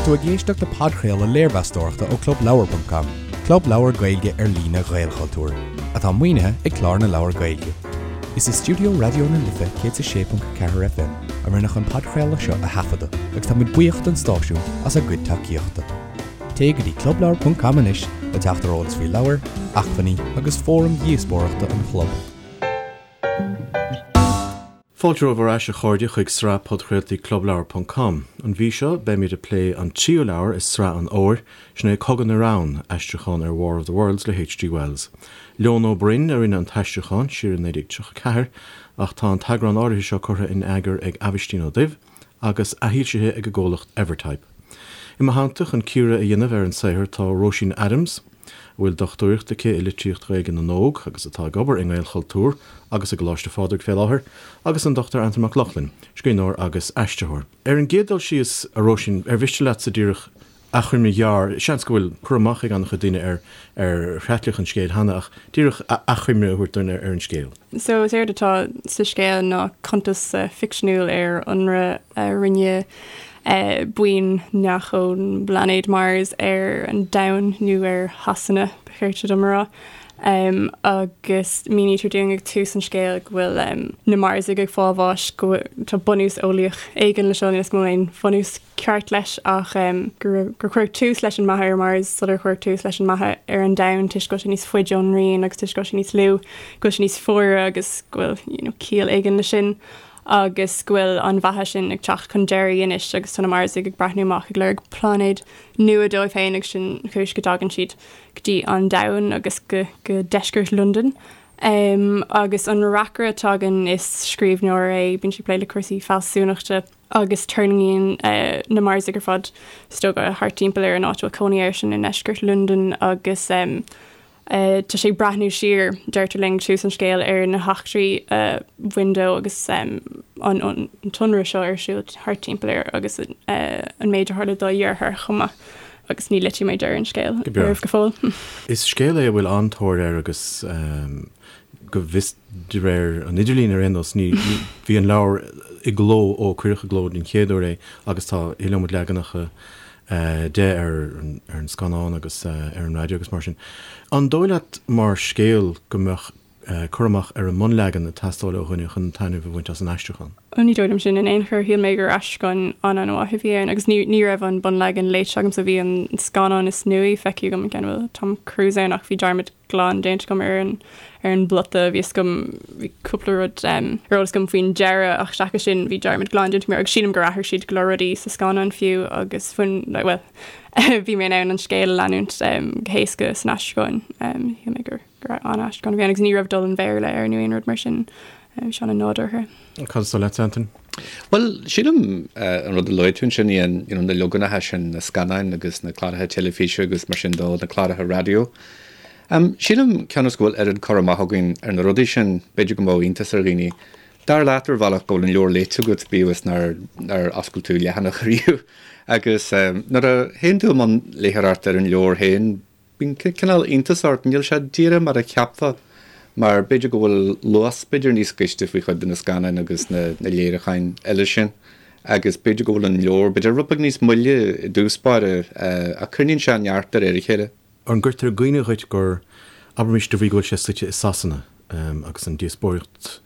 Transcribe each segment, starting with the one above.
tú ag éisteacht le podchraoladh léirmheastóireachta ó ClubLeabhar.com, club leabhar Gaeilge ar líne Ghaelchultúir, atá maoinithe ag Clár na Leabhar Gaeilge. Is i stiúideo Raidió na Life 106.4 FM a rinneadh an podchraoladh seo a thaifeadadh agus tá muid buíoch don stáisiún as a gcuid tacaíochta. Téigh go dtí clubleabhar.com anois le teacht ar eolas faoi leabhair, acmhainní agus fóraim dhíospóireachta an chlub. Fáilte romhaibh ar ais a chairde chuig sraith podchraoltaí Clubleabhar ponc com. An mhí seo beimid ag plé an tríú leabhar i sraith an fhómhair, sin é Cogadh na Reann, aistriúchán ar War of the Worlds le H.G. Wells. Leon Ó Broin a rinne an t-aistriúchán siar i 1934 ach tá an t-eagrán áirithe seo curtha in eagar ag Aibhistín Ó Duibh agus athfhoilsithe ag an gcomhlacht Evertype. I mo theannta chun cíoradh a dhéanamh ar an saothar tá Róisín Adams, a bhfuil dochtúireacht aici i litríocht Ghaeilge na nÓg agus atá ag obair i nGaelchultúr agus i gColáiste Phádraig fé láthair, agus an Dr Antain Mac Lochlainn, scríbhneoir agus aistritheoir. Ar an gcéad dul síos, a Róisín, ar mhiste leatsa díreach achoimre ghearr, seans go bhfuil cur amach ag an-chuid daoine ar ar chreatlach an scéil cheana, ach díreach achoimre a thabhairt dúinn ar an scéal. So is éard atá sa scéal ná cuntas ficseanúil ar ionradh a rinne buíon neach ón bpláinéad Mars ar an Domhan, nó ar Shasana, ba chirte dom a rá. Agus mínítear dúinn ag tús an scéil go bhfuil na Marsaigh ag fáil bháis, go bhfuil, tá bunús eolaíoch éigin le seo, níl 'fhios agam an bhfuil aon bhunús ceart leis ach gur cuireadh tús leis an mbeatha ar Mars sular cuireadh tús leis an mbeatha ar an Domhan toisc go bhfuil sé níos faide ón ngrian agus toisc go bhfuil sé níos lú, go bhfuil sé níos fuaire agus go bhfuil you know ciall éigin leis sin agus go bhfuil an bheatha sin ag teacht chun deiridh anois agus tá na Marsaigh ag breathnú amach ag lorg pláinéad nua dóibh féin agus sin an chúis go dtagann siad go dtí an Domhan agus go go deisceart Londain. Um, agus an reacaire atá againn is scríbhneoir é, bíonn sé ag plé le cúrsaí fealsúnachta. agus tuirlingíonn na Marsaigh ar fad is dócha thart timpeall ar an áit a bhfuil cónaí airsean i ndeisceart Londan agus tá sé ag breathnú siar, deirtear linn ag tús an scéil, ar na heachtraí a bhain dó agus an t-ionradh seo ar siúl thart timpeall air agus an méid a tharla dá dheartháir chomh maith. Agus ní loitfidh mé deireadh an scéil oraibh go fóill. Is scéal é a bhfuil an-tóir air agus go bhfios De réir an idirlín ar aon nós, ní, bhí an leabhar i gcló ó cuireadh i gcló den chéad uair é agus tá iliomad leaganacha de ar an scannán agus ar an raidió agus mar sin. An dóigh leat mar scéal go mbeadh cur amach ar an mbunleagan ag teastáil ó dhuine chun taitneamh a bhaint as an aistriúchán? Ní dóigh liom sin in aon chor. Shíl mé gur aistriúchán an-an-mhaith a bhí ann agus ní ní raibh an bunleagan léite agamsa. Bhí an scannán is nuaí feicthe agam, an ceann a bhfuil Tom Cruise ann ach bhí dearmad glan déanta agam ar an ar an bplota. Bhí fhios agam bhí cúpla rud ar eolas agam faoin deireadh ach seachas sin bhí dearmad glan déanta agam air agus sílim gur athraigh siad go leor rudaí sa scannán fiú agus bhain like bhuel bhí mé in ann an scéal a leanúint go héasca san aistriúchán. Shíl mé gur gur an-aistriúchán a bhí ann agus ní raibh dul an Bhéarla air nó aon rud mar sin. Bhí sé an-nádúrtha. Cad is dóigh leat, Antain? Bhuel, sílim an rud a luaigh tú ansin, Ian, you know, na leaganacha sin, na scannáin agus na cláracha teilifíse agus mar sin dó, na cláracha raidió. Sílim, cionn is go bhfuil oiread cur amach againn ar na rudaí sin, b'fhéidir go mbeadh iontas ar dhaoine. Dar leat ar bhealach go bhfuil an leabhar léite agat, bíodh is nár, nár oscail tú leathanach riamh. Agus nuair a théann tú i mbun léitheoireachta ar an leabhar féin, Bíonn cineál iontas ort, níl sé díreach mar a cheapfá, mar b'fhéidir go bhfuil luas b'fhéidir níos gaiste faoi chuid de na scannáin agus na léiriúcháin eile sin agus b'fhéidir go bhfuil an leabhar b'fhéidir rud beag níos moille i dtús báire ach coinníonn sé neart de réir a chéile. An gcuirtear i gcuimhne dhuit gur, abraimis de bhrí go bhfuil sé suite i Sasana, agus an díospóireacht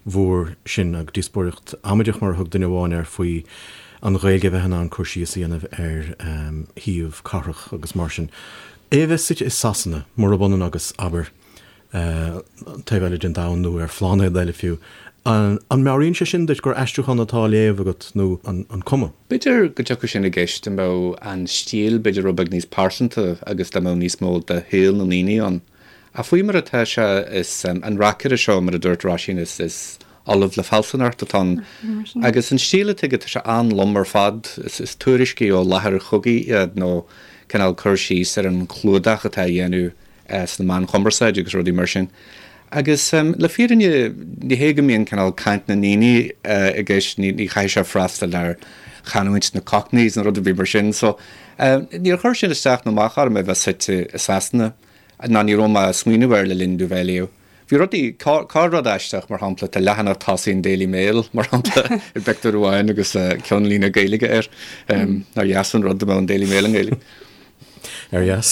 mhór sin, agus díospóireacht amaideach mar a thug duine amháin air, faoi an Ghaeilge a bheith in ann cur síos a dhéanamh ar shuíomh cathrach agus mar sin. É a bheith suite i Sasana, murab ionann agus, abair, an taobh eile den domhan nó ar phláinéad eile fiú, an meabhraíonn sé sin duit gur aistriúchán atá á léamh agat nó an cuma? B'fhéidir go dtiocfadh sin i gceist dá mbeadh an stíl b'fhéidir rud beag níos pearsanta agus dá mbeadh níos mó de shaol na ndaoine ann. Ach faoi mar atá sé, is an reacaire seo, mar a dúirt Róisín, is is ollamh le fealsúnacht atá ann. Agus an stíl atá aige, tá sé an-lom ar fad. Is tuairiscí ó láthair chogaidh iad nó cineál cur síos ar an chlúdach atá á dhéanamh sna meáin chumarsáide agus rudaí mar sin. Agus le fírinne, ní hé go mbíonn cineál caint na ndaoine i gceist, ní chaithfidh sé freastal ar chanúint na Cockneys nó rud ar bith mar sin. So, níor chuir sin isteach nó amach orm é bheith suite i Sasana. ná ní raibh mé ag smaoineamh air le linn domh bheith á léamh. Bhí rudaí, corr-rud aisteach, mar shampla, tá leathanach tosaigh an Daily Mail, mar shampla, i bpictiúr amháin agus ceannlíne Gaeilge air. Nár dheas an rud dá mbeadh an Daily Mail i nGaeilge? Ar dheas.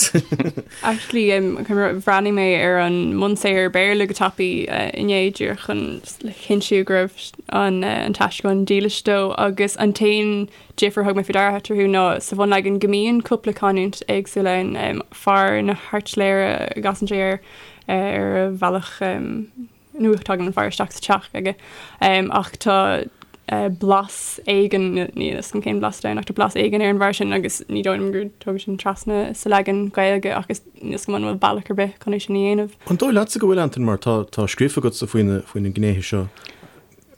Actually, bhreathnaigh mé ar an mbunsaothar Béarla go tapaidh inné díreach chun le cinntiú go raibh an t-aistriúchán dílis dó agus an t-aon difear a thug mé faoi deara eatarthu ná sa bhunleagan go mbíonn cúpla canúint éagsúil ann, fear na hairtléire a gcasann sé air ar a bhealach nó tagann an fear isteach sa teach aige ach tá blas éigin, níl fhios agam cén blas atá ann ach tá blas éigin ar an bhfear sin agus ní dóigh liom gur tógadh sin trasna sa leagan Gaeilge ach is níl fhios agam an bhfuil bealach ar bith chun é sin a dhéanamh. An dóigh leatsa go bhfuil, Antain, mar tá tá scríofa agatsa faoi na faoi na gnéithe seo?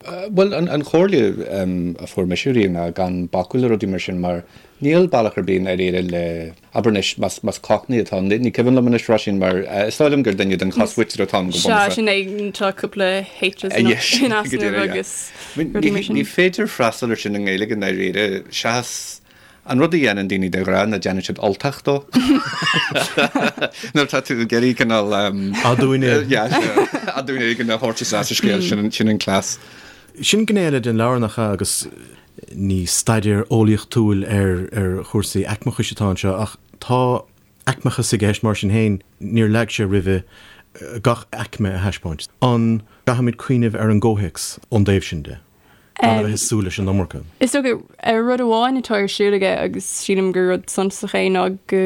Bhuel, an chomhairle a fuair mise riamh ná gan bacadh le rudaí mar sin mar níl bealach ar bith i ndáiríre le, abair anois, más Cockney atá ann, ní cuimhin liom anois, Róisín, mar is dóigh liom gur duine den chosmhuintir atá ann go bunúsach. Sea, sin é, tá cúpla H's in easnamh agus rudaí mar sin. Ní féidir freastal ar sin i nGaeilge i ndáiríre, seachas An rud a dhéanann daoine de ghnáth ná déanann siad Ultach dó. Nuair atá tú ag iarraidh cineál Aduaine. Aduaine éigin a thabhairt isteach sa scéal, sin an cleas. Sin gné eile den leabhar nach ea agus ní staidéar eolaíochtúil ar chúrsaí aicmeachais atá anseo ach tá aicmeachas i gceist mar sin féin, níor leag sé roimhe gach aicme a thaispeáint. An gcaithfimid cuimhneamh ar an gcomhthéacs ón dtaobh sin de? Gan a bheith ag súil leis an iomarca. Is dócha, rud amháin atá ar siúl aige agus sílim gur rud suntasach é ná go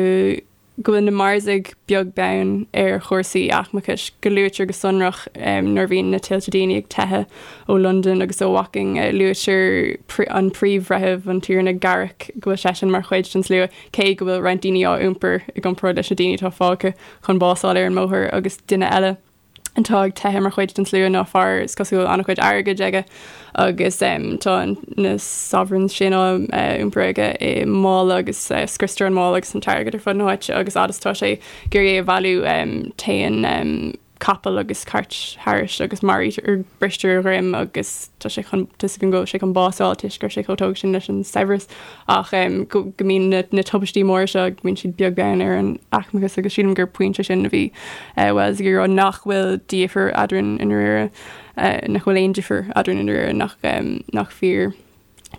go bhfuil na Marsaigh beag beann ar chúrsaí aicmeachais, go luaitear go sonrach nuair a bhíonn na tuilte daoine ag teitheadh ó Londain agus ó Woking, luaitear an príomhbhreitheamh, an Tiarna Garrick, go bhfuil seisean mar chuid den slua, cé go bhfuil roinnt daoine á iompar i gcomparáid leis na daoine atá fágtha chun bás a fháil ar an mbóthar agus duine eile. atá ag teitheadh mar chuid den slua ná fear is cosúil an-chuid airgid aige agus tá na sovereigns sin á iompar aige i mála agus scriostar an mála agus an t-airgead ar fud na háite agus fhad is atá sé ag iarraidh é a bhailiú téann capall agus cairt thairis agus maraítear bristear a dhroim agus tá sé chun tá a fhios againn go bhfuil sé chun bás a fháil toisc go raibh sé chomh tógtha sin leis an saibhreas ach go go mbíonn na na tubaistí móra seo go mbíonn siad beag beann ar an aicmeachas agus sílim gur pointe sin a bhí Wells ag iarraidh nach bhfuil difear eadrainn i ndáiríre nach bhfuil aon difear eadrainn i ndáiríre nach nach fíor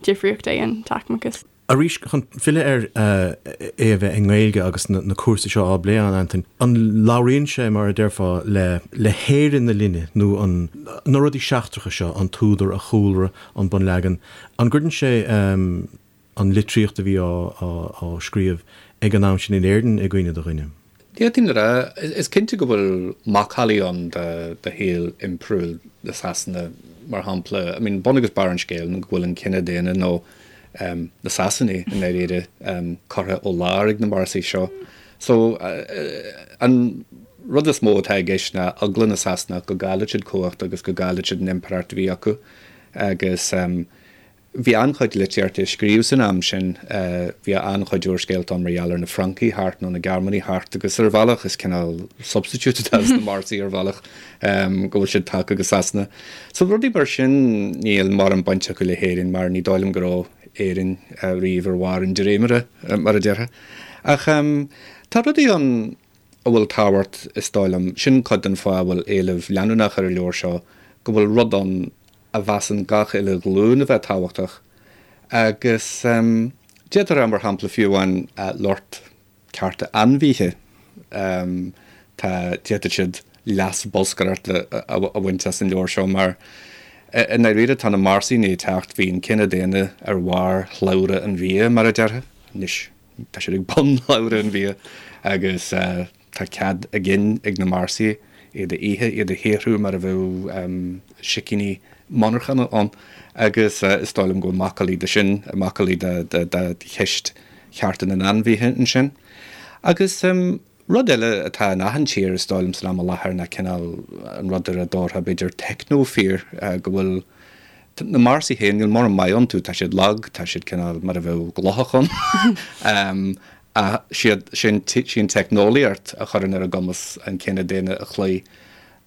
difríocht é an t-aicmeachas. Arís, chun filleadh ar é a bheith i nGaeilge agus na cúrsaí seo á bplé ann, Antain, an labhraíonn sé, mar a déarfá, le le hÉirinn na linne nó an na rudaí seachtracha seo, an t-údar, a chúlra, an bunleagan, an gcuireann sé an litríocht a bhí á scríobh ag an am sin in Éirinn i gcuimhne do dhuine? D'fhéadfainn a rá, is cinnte go bhfuil macallaí ann de shaol impiriúil na Sasana, mar shampla. I mean, bun agus barr an scéil ná go bhfuil an cine daonna, nó na Sasanaigh i ndáiríre, curtha ó lár ag na Marsaigh seo. So, an rud is mó atá i gceist ná eagla na Sasanach go gcaillfeadh siad cumhacht agus go gcaillfeadh siad an impireacht a bhí acu. Agus. Bhí an-chuid litríochta á scríobh san am sin. Bhí an-chuid úrscéalta ann mar gheall ar na Francaigh thart nó na Gearmánaigh thart agus ar bhealach is cineál substitute atá sna Marsaigh ar bhealach go bhfuil siad tagtha go Sasana. So rudaí mar sin níl mórán baint acu le hÉirinn mar ní dóigh liom go raibh Éirinn riamh ar bharr an dréimire mar a déarfá. Ach tá rudaí ann a bhfuil tábhacht is dóigh liom, sin cuid den fáth a bhfuil éileamh leanúnach ar an leabhar seo, go bhfuil rud ann a mheasann gach uile ghlúin a bheith tábhachtach, agus d'fhéadfá a rá, mar shampla, fiú amháin lucht cearta ainmhithe, tá, d'fhéadfadh siad leas bolscaireachta a bhaint as an leabhar seo, mar i ndáiríre tá na Marsaigh i ndiaidh teacht, bhí an cine daonna ar bharr shlabhra an bhia, mar a déarfá, anois tá siad ag bun shlabhra an bhia, agus. Tá cead a gcinn ag na Marsaigh iad a ithe, iad a shaothrú mar a bheadh sicíní monarchana ann agus is dóigh liom go bhfuil macallaí de sin, macallaí de cheist chearta na n-ainmhithe ansin. Agus rud eile atá in achan tír is dóigh liom san am i láthair ná cineál an rud ar a dtabharfá b'fhéidir techno-fear, go bhfuil na Marsaigh féin, níl mórán maith iontu, tá siad lag, tá siad cineál mar a bheadh glóthach ann. Ach siad sin, sí an teicneolaíocht a chuireann ar a gcumas an cine daonna a chloí.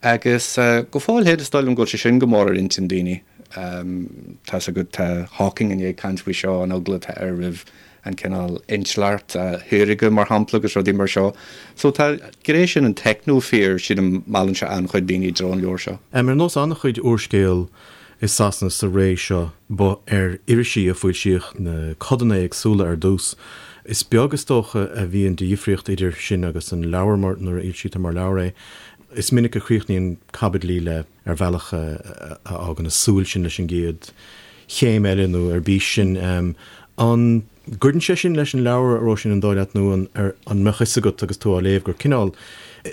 Agus go fóill féin, is dóigh liom go bhfuil sé sin go mór ar intinn daoine. Tá's agat, tá Hawking i ndiaidh caint faoi seo, an eagla atá air roimh an cineál intleacht shaorga, mar shampla, agus rudaí mar seo. So tá gné sin an techno-fear, sílim, meallann sé an-chuid daoine i dtreo an leabhair seo. Ar nós an-chuid úrscéal i Sasana sa ré seo, ba ar irisí a foilsíodh na codanna éagsúla ar dtús. Is beag, is dócha, a bhíonn de dhifríocht idir sin agus an leabhar mar nuair a fhoilsítear mar leabhar é. Is minic a chríochnaíonn caibidlí le. ar bhealach a fhágann ag súil sinn leis an gcéad chéim eile nó ar bís sin. An gcuireann sé sin leis an leabhar, a Róisín, an dóigh leat, nó an an mbeadh fhios agat agus tú á léamh gur cineál,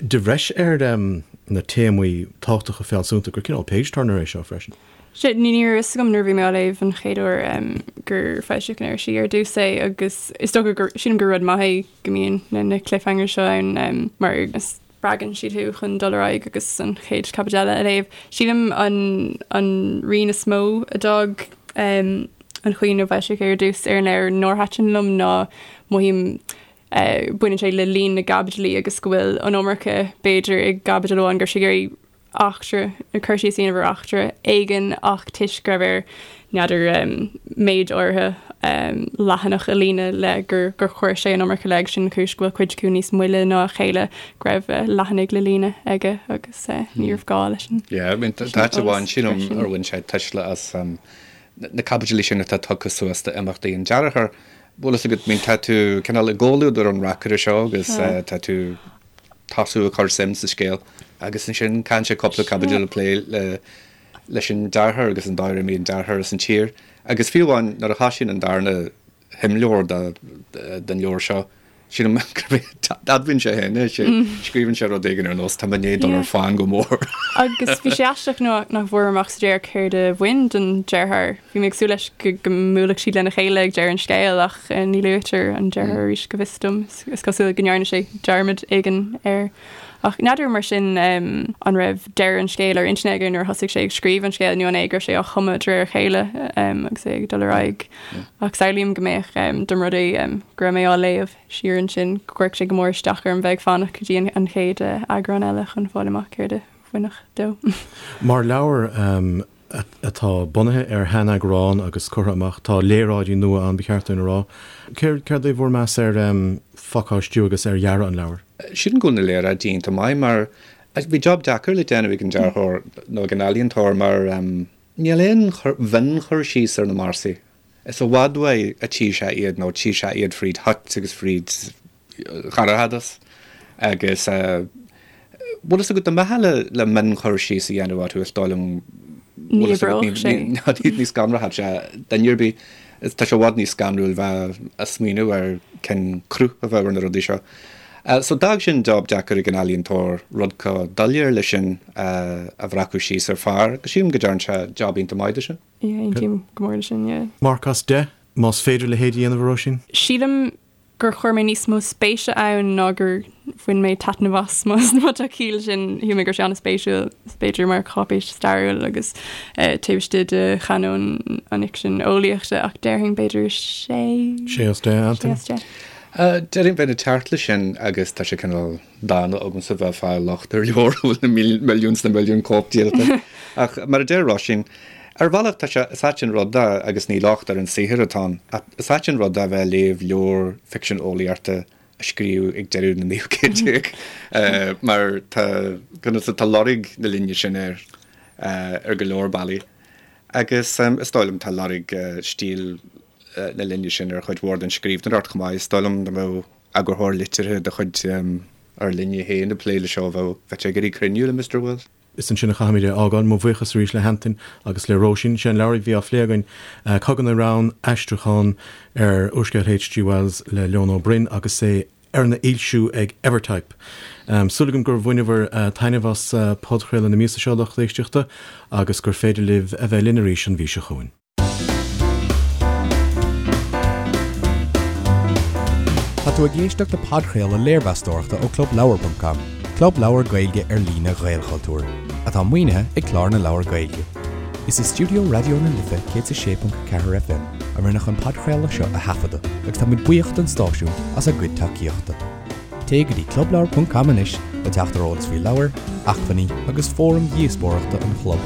de bhreis ar na téamaí tábhachtacha fealsúnta, gur cineál page-turner é seo freisin? Sea, ní raibh fhios agam nuair a bhí mé á léamh an chéad uair gur foilsíodh in irisí ar dtús é agus is dócha gur, sílim gur rud maith é go mbíonn na cliffhangers seo ann mar is spreagann siad thú chun dul ar aghaidh agus an chéad chaibidil eile a léamh. Sílim an an rian is mó a d'fhág an chaoi inar foilsíodh é ar dtús ar an leabhar nár thaitin liom ná mothaím baineann sé le líon na gcaibidlí agus go bhfuil an iomarca b'fhéidir i gcaibidil amháin go raibh sé ag iarraidh eachtra, nó cur síos a dhéanamh ar eachtra éigin ach toisc go raibh air, n'fheadar, méid áirithe leathanach a líonadh le gur gur chuir sé an iomarca le agus sin an chúis go bhfuil cuid acu níos moille ná a chéile, go raibh leathanaigh le líonadh aige agus ní raibh gá leis an Yeah, I mean, tá áit amháin sílim ar bhain sé tuisle as na caibidlí sin atá tugtha suas d'imeachtaí an deartháir. Bhfuil fhios agat, I mean, tá tú cineál i gcomhluadar an reacaire seo agus tá tú tosú ag cur suim sa scéal agus ansin caitheann sé cúpla caibidil ag plé le leis an deartháir agus an dóigh ar imigh an deartháir as an tír agus fiú amháin nuair a thoisíonn an darna himleabhar den leabhar seo sílim gurb é admhaíonn sé féin é sé scríobhann sé rud éigin ar nós tá mé i ndiaidh dul ar fán go mór. Agus bhí sé aisteach nach bhfuair amach sa deireadh céard a bhain don deartháir. Bhí mé ag súil leis go mbuailfeadh siad lena chéile ag deireadh an scéil ach ní luaitear an deartháir arís go bhfios dom. Is cosúil go ndearna sé dearmad éigin air. Ach n'fheadar mar sin an raibh deireadh an scéil ar intinn aige nuair a thosaigh sé ag scríobh an scéil nó an é go raibh sé á chumadh de réir a chéile agus é ag dul ar aghaidh. Ach samhlaím go mbeadh dá mba rud é go raibh mé á léamh siar ansin go gcuirfeadh sé go mór isteach orm bheith ag fanacht go dtí an chéad eagrán eile chun fáil amach céard a bhainfeadh dó. Mar leabhar atá bunaithe ar sheaneagrán agus curtha amach. Tá léaráidí nua ann, ba cheart dúinn a rá. Céard é bhur meas ar phacáistiú agus ar dhearadh an leabhair? Sílim go bhfuil na léaráidí iontach maith mar bhí job deacair le déanamh ag an dearthóir nó ag an ealaíontóir mar níl aon mhion-chur síos ar na Marsaigh. Is i bhfad uaidh a tchí sé iad nó tchí sé iad fríd thoit agus fríd dhorchadas agus bhfuil fhios agat dá mbeifeá le le mion-chur síos a dhéanamh orthu is dóigh liom Ní oibreodh sé. Ní scanródh sé duine ar bith. Tá sé i bhfad níos scanrúil bheith a' smaoineamh ar cén cruth a bheadh ar na rudaí seo. So d'fhág sin job deacair ag an ealaíontóir rud chomh doiléir leis sin a bhreacadh síos ar phár agus sílim go dtearn sé job iontach maith de sin. Yeah, aontaím go mór leis sin, yeah. Marc as 10, más féidir a leithéid a dhéanamh, a Róisín? Sílim gur chuir mé níos mó spéise ann ná gur bhain mé taitneamh as, más má tá ciall sin. Shíl mé go raibh sé an-spéisiúil, b'fhéidir mar cháipéis stairiúil agus taobh istigh de chanóin an fhicsin eolaíochta, ach déarfainn b'fhéidir sé. Sé as 10, Antain? Sé as 10. Déarfainn bheinn ag teacht leis sin agus tá sé cineál dána agamsa bheith ag fáil locht ar leabhar a bhfuil na milliúin 's na milliúin cóip díolta. Ach mar a deir Róisín, Ar bhealach, tá sé, is ait an rud é, agus ní locht ar an saothar atá ann, ach is ait an rud é a bheith ag léamh leabhar ficsean eolaíochta a scríobhadh ag deireadh na naoú céad déag, mar tá, conas, tá lorg na linne sin air ar go leor bealaí. Agus is dóigh liom tá lorg stíl na linne sin ar chuid mhór den scríbhneoireacht chomh maith. Is dóigh liom dá mbeadh eagarthóir liteartha de chuid ár linne féin ag plé leis seo, bheadh sé ag iarraidh cruinniú le Mister Wells. Is ansin a chaithfimid é a fhágáil. Mo bhuíochas arís le hAntain agus le Róisín. Sé an leabhar a bhí á phlé againn, Cogadh na Reann, aistriúchán ar úrscéal H.G. Wells le Leon Ó Broin agus é arna fhoilsiú ag Evertype. Súil agam gur bhaineabhair taitneamh as podchraoladh na míosa seo, lucht éisteachta, agus gur féidir libh a bheith linn arís an mhí seo chugainn. Tá tú ag éisteacht le podchraoladh léirmheastóireachta ó ClubLeabhar.com, club leabhar Gaeilge ar líne Ghaelchultúir, atá maoinithe ag Clár na Leabhar Gaeilge. Is i stiúideo Raidió na Life 106.4 FM a rinneadh an podchraoladh seo a thaifeadadh agus tá muid buíoch don stáisiún as a gcuid tacaíochta. Téigh go dtí clubleabhar.com anois le teacht ar eolas faoi leabhair, acmhainní agus fóraim dhíospóireachta an chlub.